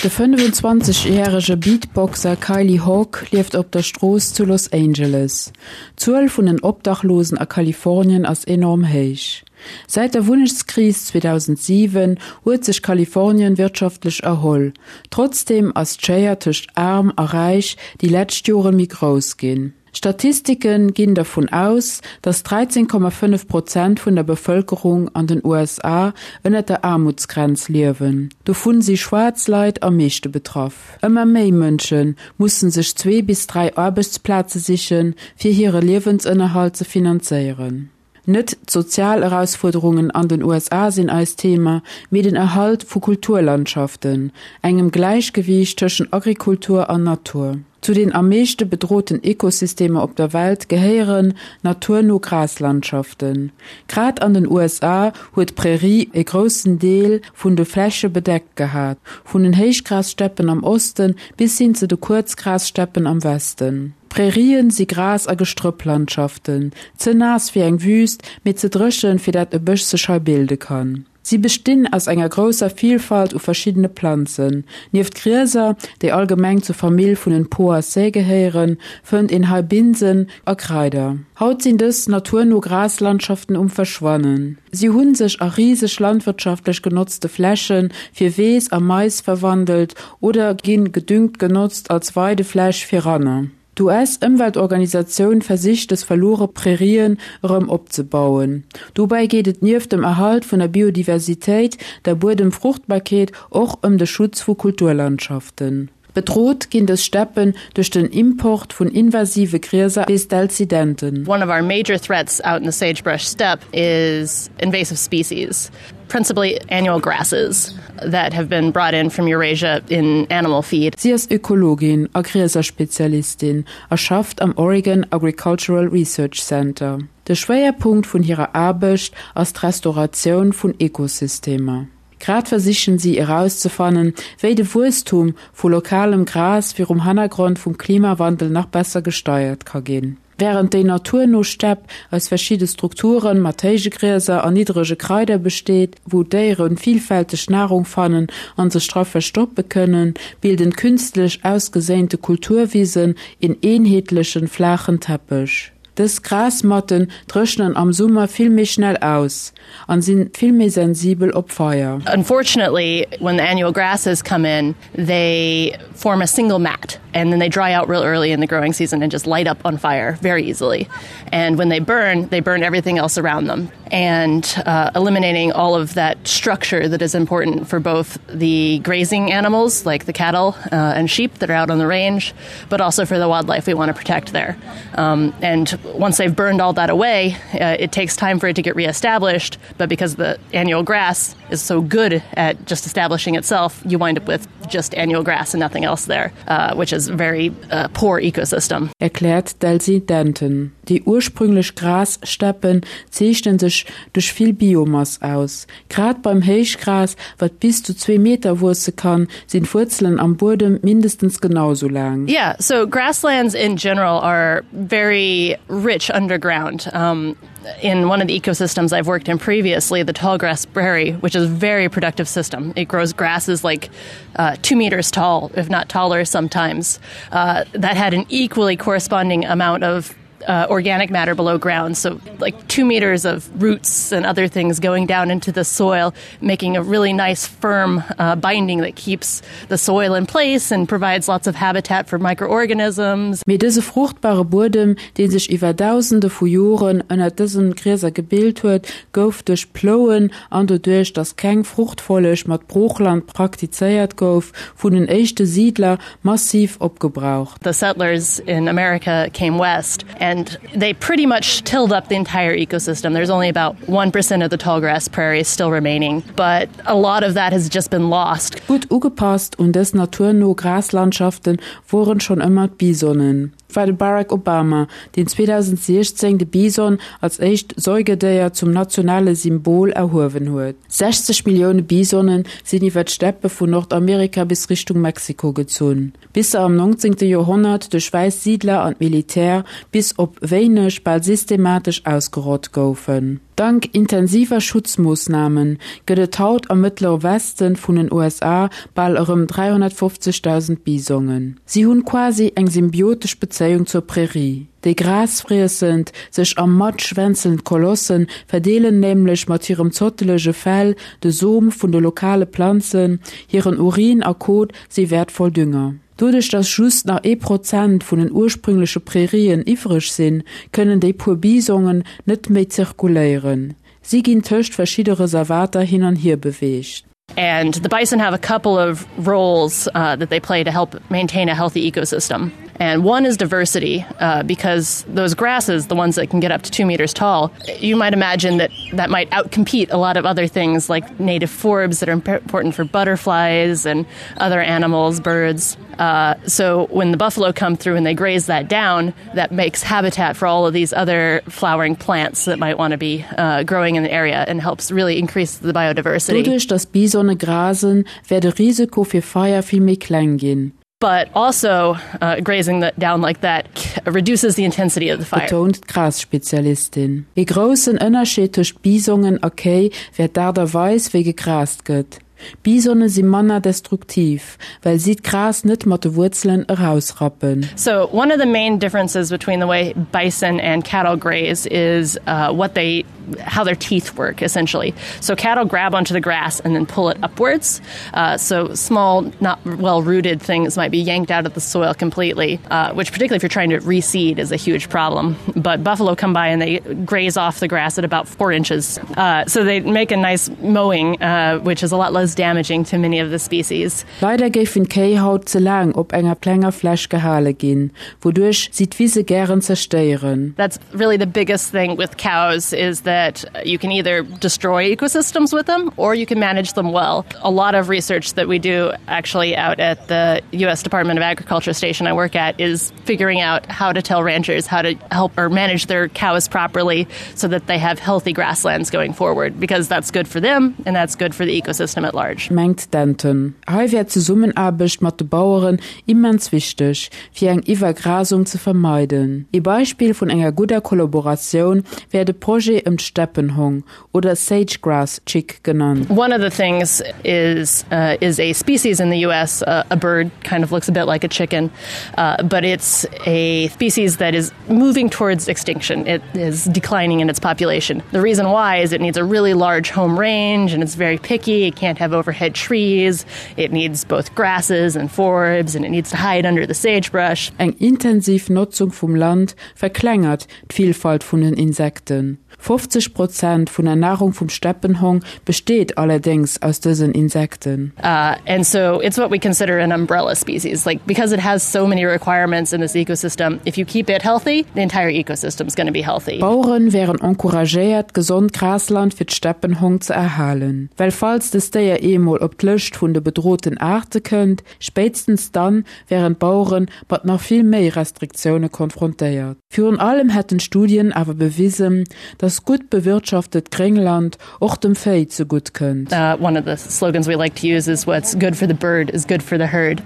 De 25 järege Beatboxer Kylie Hawk lieft op der Strooss zu Los Angeles. D'Zuel vun den Obdachlosen a Kalifornien ass enorm héich. Säit der Wunnechtskris 2007 huet sech Kalifornien wirtschaftlech erholl. Trotzdeem ass d'Schéier tëscht Aarm a Räich déi lescht Jore méi grouss ginn. Statistike ginn dervun aus, datt 13,5 Prozent vun der Bevëlkerung an den USA ënner der Aarmutsgrenz liewen. Dovun si schwaarz Leit am meeschte betraff. Ëmmer méi Mënsche mussen sech zwee bis 3 Aarbechtsplaze sichen, fir hire Liewensënnerhalt ze finanzéieren. Net d'sozial Erausfuerderungen an den USA sinn eist Thema, mee den Erhalt vu Kulturlandschaften, engem Gläichgewiicht tëschent Agrikultur an Natur. Zu den am meeschte bedroten Ekosystemer op der Welt gehéieren naturno Graslandschaften. Grad an den USA huet d'Prärie e groussen Deel vun de Fläche bedeckt gehat, vun den Héichgrassteppen am Osten bis hin zu de Kuerzgrassteppen am Westen. Prärien si Gras a Gestrëpplandschaften, ze naass fir eng Wüüst, mee ze dréchen, fir dat e Bësch sech hei bilde kann. Si bestinn aus enger grousser Vilfalt u verschiddene Planzen. Nieft Grieser, déi allgemeng zur Famill vun den Poaceae gehéieren, fënnt een hei Binsen a Kraider. Haut sinn dës naturno Graslandschaften um Verschwannen. Si hu sech a riseg landwirtschaftlech genotzte Fläche fir Weess a Mais verwandelt oder ginn gedüngt genotzt als Weidefläch fir Ranner. D'US-Ëmweltorganisatioun versicht des verluere Prärien erëm opzebauen. Dobäi geet et nieft dem Erhalt vun der Biodiversitéit, der Buedemfruchtbarkeet och ëm de Schutz vu Kulturlandschaften. Bedroht ginn dës Steppen duerch den Import vun invasive Grieser, weess d'Elsie Denton. One of our major threats out in the sagebrush steppe is invasive species, principally annual grasses that have been brought in from Eurasia in animal feed. Si ass Ökologin a Grieserspezialistin a schafft am Oregon Agricultural Research Center. De Schwéierpunkt vun hirer Aarbecht ass d'Restauratioun vun Ekosystemer. Grad versichen si erauszefannen, wéi de Wuesstum vu lokalem Gras virum Hannergrond vum Klimawandel nach besser gesteiert ka ginn. Wärend déi naturno Stepp aus verschidde Strukture mat héije Grieser an niddrege Kraider besteet, wou d'Déiere villfälteg Narung fannen an sech dra verstoppe kënnen, bilden künstlech ausgeséinte Kulturwisen een eenheetlechen, flaachen Teppech. Dës Grasmatten dréchnen am Summer vill méi schnell aus an sinn vill méi sensibel op Feier. Unfortunately, when the annual grasses come in, they form a single mat and then they dry out real early in the growing season and just light up on fire very easily. And when they burn, they burn everything else around them and uh, eliminating all of that structure that is important for both the grazing animals like the cattle uh, and sheep that are out on the range, but also for the wildlife we want to protect there. Um, and once they've burned all that away, uh, it takes time for it to get reestablished, but because the annual grass is so good at just establishing itself, you wind up with just annual grass and nothing else there, uh, which is very uh, poor ecosystem. Erkläert d'Elsie Denton. Déi ursprünglech Grassteppen zeechnen sech duerch vill Biomass aus. Grad beim Héichgras, wat bis zu zwee Meter wuesse kann, sinn d'Wuerzelen am Buedem mindestens genau sou laang. Yeah, so grasslands in general are very rich underground. Um, in one of the ecosystems I've worked in previously, the tallgrass prairie, which is a very productive system. It grows grasses like uh, two meters tall, if not taller sometimes. Uh, that had an equally corresponding amount of uh, organic matter below ground so like two meters of roots and other things going down into the soil making a really nice firm uh, binding that keeps the soil in place and provides lots of habitat for microorganisms. Mee dëse fruchtbare Buedem, dee sech iwwer Dausende vu Joren ënner dësen Grieser gebilt huet, gouf duerch d'Plouen an doduerch, datt keng Fruchtfolleg mat Broochland praktizéiert gouf, vun den éischte Siidler massiv opgebraucht. The settlers in America came west and they pretty much tilled up the entire ecosystem. There's only about 1% of the tallgrass prairie still remaining, but a lot of that has just been lost. Gutt ugepasst un dës naturno Graslandschaften woren schonn ëmmer d'Bisonen. Et war de Barack Obama, deen 2016 de Bison als éischt Säugedéier zum nationale Symbol erhuewen huet. 60 Millioune Bisonen sinn iwwer d'Steppe vun Nordamerika bis Richtung Mexiko gezunn, bis se am 19. Joerhonnert duerch wäiss Siidler an d'Militär bis op wéineg bal systematesch ausgerott goufen. Dank intensiver Schutzmoossname gëtt et haut am Mëttlere Westen vun den USA bal erëm 350.000 Bisongen. Si hunn quasi eng symbiotesch Bezéiung zur Prärie. Déi grasfriessend, sech am Matsch wänzelnd Kolosse verdeelen nämlech mat hirem zottelege Fell de Som vun de lokale Planzen, hiren Urin a Kot si wäertvoll Dünger. Doduerch dass just nach ee Prozent vun den ursprüngleche Prärien iwwreg sinn, kënnen déi puer Bisongen net méi zirkuléieren. Si ginn tëscht verschidde Reservater hin an hier beweegt. And the bison have a couple of roles uh, that they play to help maintain a healthy ecosystem. And one is diversity uh, because those grasses, the ones that can get up to two meters tall, you might imagine that that might outcompete a lot of other things like native forbs that are important for butterflies and other animals, birds. Uh, so when the buffalo come through and they graze that down, that makes habitat for all of these other flowering plants that might want to be uh, growing in the area and helps really increase the biodiversity. Doduerch dass Bisone grasen, wär de Risiko fir Feier vill méi kleng ginn. But also uh, grazing that down like that reduces the intensity of the fire. Betount d'Grasspezialistin. Ee groussen Ënnerscheed tëscht Bisongen a Kéi wär d'Aart a Weis, wéi gegrast gëtt. Bisone si manner destruktiv, well si d'Gras net mat de Wuerzelen erausrappen. So one of the main differences between the way bison and cattle graze is uh, what they how their teeth work essentially. So cattle grab onto the grass and then pull it upwards. Uh, so small, not well rooted things might be yanked out of the soil completely, uh, which particularly if you're trying to reseed is a huge problem. But buffalo come by and they graze off the grass at about four inches. Uh, so they make a nice mowing, uh, which is a lot less damaging to many of the species. Leider géifen d'Kéi haut ze laang op enger klenger Fläch gehale ginn, wouduerch si d'Wise gären zerstéieren. That's really the biggest thing with cows is that you can either destroy ecosystems with them or you can manage them well. A lot of research that we do actually out at the US Department of Agriculture station I work at is figuring out how to tell ranchers how to help or manage their cows properly so that they have healthy grasslands going forward because that's good for them and that's good for the ecosystem at large. Mengt Denton. Hei wär d'Zesummenaarbecht mat de Baueren immens wichteg, fir eng Iwwergrasung ze vermeiden. Ee Beispill vun enger gudder Kollaboratioun wär de Projet ëm d'Steppenhong oder Sage Grass Chick genannt. One of the things is uh, is a species in the US uh, a bird kind of looks a bit like a chicken uh, but it's a species that is moving towards extinction. It is declining in its population. The reason why is it needs a really large home range and it's very picky. It can't have overhead trees. It needs both grasses and forbs and it needs to hide under the sagebrush. Eng intensiv Notzung vum Land verklengert d'Vielfalt vun den Insekten. 50 Prozent vun der Nahrung vum Steppenhong besteet allerdéngs aus dësen Insekten. Uh, and so it's what we consider an umbrella species. Like because it has so many requirements in this ecosystem, if you keep it healthy, the entire ecosystem is going to be healthy. D'Baueren wären encouragéiert, gesond Grasland fir d'Steppenhong ze erhalen. Well falls dëst Déier eemol op d'Lëscht vun de bedroten Aarte kënnt, spéitstens dann wären d'Bauere mat nach vill méi Restriktioune konfrontéiert. Virun allem hätten Studien awer bewisen, dass gutt bewirtschaftet Gréngland och dem Véi zegutt kënnt. Uh, one of the slogans we like to use is what's good for the bird is good for the herd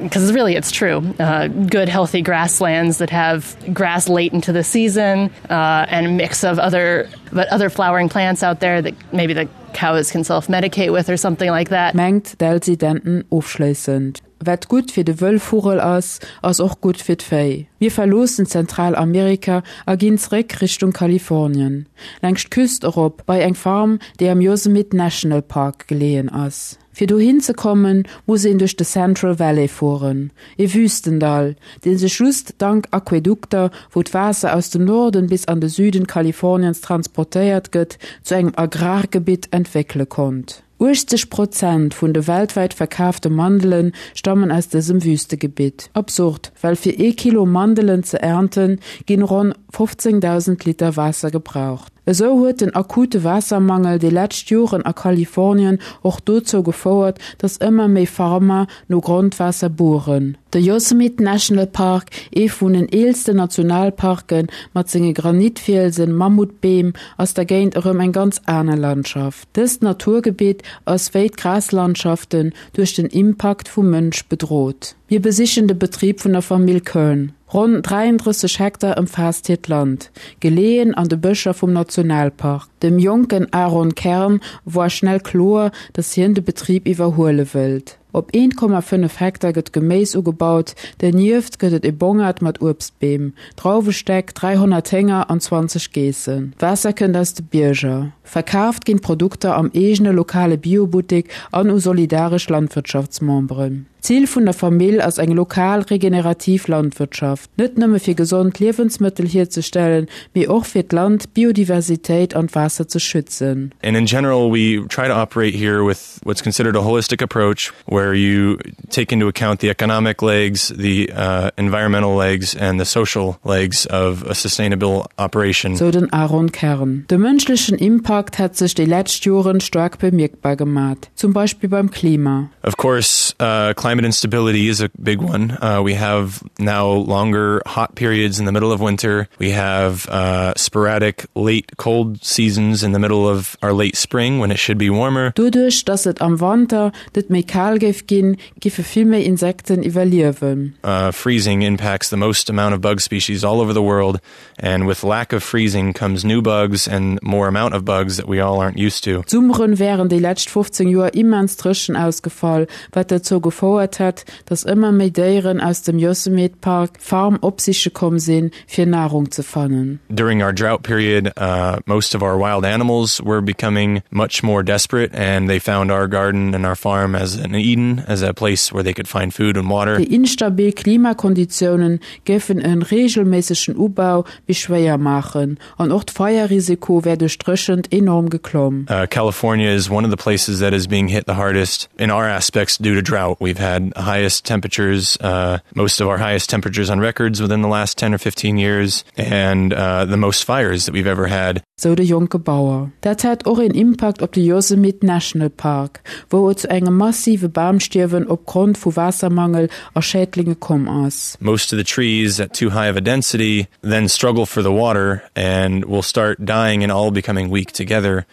because uh, really it's true. Uh, good healthy grasslands that have grass late into the season uh, and a mix of other but other flowering plants out there that maybe the cows can self-medicate with or something like that. Mengt d'Elsie Denton ofschléissend. Wat gutt fir de Wëllvugel ass, ass och gutt fir d'Véi. Mir verloossen Zentralamerika a ginn zréck Richtung Kalifornien, laangscht d'Küst erop bei eng Farm, déi am Yosemite National Park geleeën ass. Fir dohin ze kommen, muss een duerch de Central Valley fueren, e Wüstendall, dee sech just dank Aquädukter, wou d'Waasser aus dem Norden bis an de Süden Kaliforniens transportéiert gëtt, zu engem Agrargebitt entwéckele konnt. 80 Prozent vun de weltwäit verkaafte Mandele stammen aus dësem Wüstegebitt. Absurd, well fir ee Kilo Mandelen ze ernten, ginn ronn 15.000 Liter Waasser gebraucht. Esou huet den akute Waassermangel déi lescht Joren a Kalifornien och dozou gefouert, datt ëmmer méi Farmer no Grondwaasser bueren. De Yosemite National Park, ee vun den eelsten Nationalparke mat senge Granitfielsen, Mammutbeem, ass dergéint erëm eng ganz aner Landschaft. Dëst Naturgebitt ass wéi d'Graslandschaften duerch den Impakt vum Mënsch bedrot. Mir besichen de Betrib vun der Famill Kern. Ronn 33 Hektar ëmfaasst hiert Land, geleeën an de Bëscher vum Nationalpark. Dem jonken Aaron Kern woar schnell kloer, datt hien de Betrib iwwerhuele wëllt. Op 1,5 Hektar gëtt Geméis ugebaut, dernieft gëtt et e Bongert mat Uebstbeem, Drauwestäck, 300 Hénger an 20 Geessen. Waasser kënnt aus de Bierger. Verkaaft ginn d'Produkter am eegene lokale Biobuttek an u solidaresch Landwirtschaftsmemberen. D'Zil vun der Famill ass eng lokal regenerativ Landwirtschaft, net nëmme fir gesond Liewensmëttel hierzestellen, mee och fir d'Land, d'Biodiversitéit an d'Waasser ze schützen. And in general we try to operate here with what's considered a holistic approach where you take into account the economic legs, the uh, environmental legs and the social legs of a sustainable operation. Sou den Aaron Kern. De mënschlechen Impakt hätt sech déi lescht Joren staark bemierkbar gemat. Zum Beispill beim Klima. Of course, uh, climate instability is a big one. Uh, we have now longer hot periods in the middle of winter. We have uh, sporadic late cold seasons in the middle of our late spring when it should be warmer. Doduerch, dass et am Wanter net méi kal géif ginn, giffe vill méi Insekten iwwerliewen. Uh, freezing impacts the most amount of bug species all over the world and with lack of freezing comes new bugs and more amount of bugs that we all aren't used to. D'Summeren wären déi lescht 15 Joer immens dréchen ausgefall, wat dozou gefouert hätt, datt ëmmer méi Déieren aus dem Yosemite Park d'Farm opsiche komm sinn, fir Nahrung ze fannen. During our drought period, uh, most of our wild animals were becoming much more desperate and they found our garden and our farm as an Eden, as a place where they could find food and water. Déi instabil Klimakonditiounen géifen e reegelméissegen Ubau méi schwéier maachen an och d'Feierrisiko wär duerch d'Dréchent enorm geklomm. California is one of the places that is being hit the hardest in our aspects due to drought. We've had highest temperatures, uh, most of our highest temperatures on records within the last 10 or 15 years and uh, the most fires that we've ever had. Sou de jonke Bauer. Dat hätt och een Impakt op de Yosemite National Park, wou et zu engem massive Bamstierwen opgrond vu Waassermangel a Schädlinge komm ass. Most of the trees at too high of a density then struggle for the water and will start dying and all becoming weak together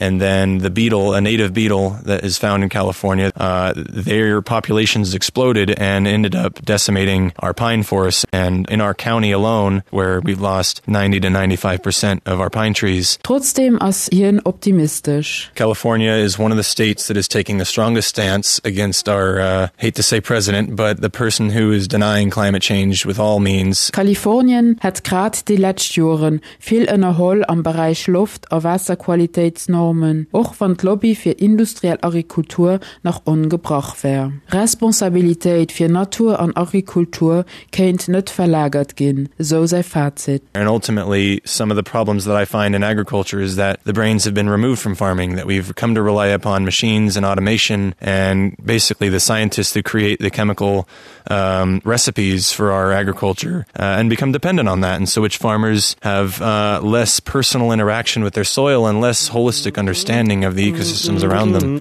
and then the beetle, a native beetle that is found in California, uh, their populations exploded and ended up decimating our pine forests and in our county alone where we've lost 90 to 95 percent of our pine trees. Trotzdeem ass hien optimistesch. California is one of the states that is taking the strongest stance against our uh, hate to say president, but the person who is denying climate change with all means. Kalifornien hätt grad déi lescht Joren vill ënnerholl am Beräich Loft a Waasserqualitéitsnormen, och wann d'Lobby fir industriell Agrikultur nach ongebrach wär. Responsabilitéit fir Natur an Agrikultur kéint net verlagert ginn, esou säi Fazit. And ultimately some of the problems that I find in agriculture is that the brains have been removed from farming, that we've come to rely upon machines and automation and basically the scientists who create the chemical um, recipes for our agriculture uh, and become dependent on that. And so which farmers have uh, less personal interaction with their soil and less holistic understanding of the ecosystems around them.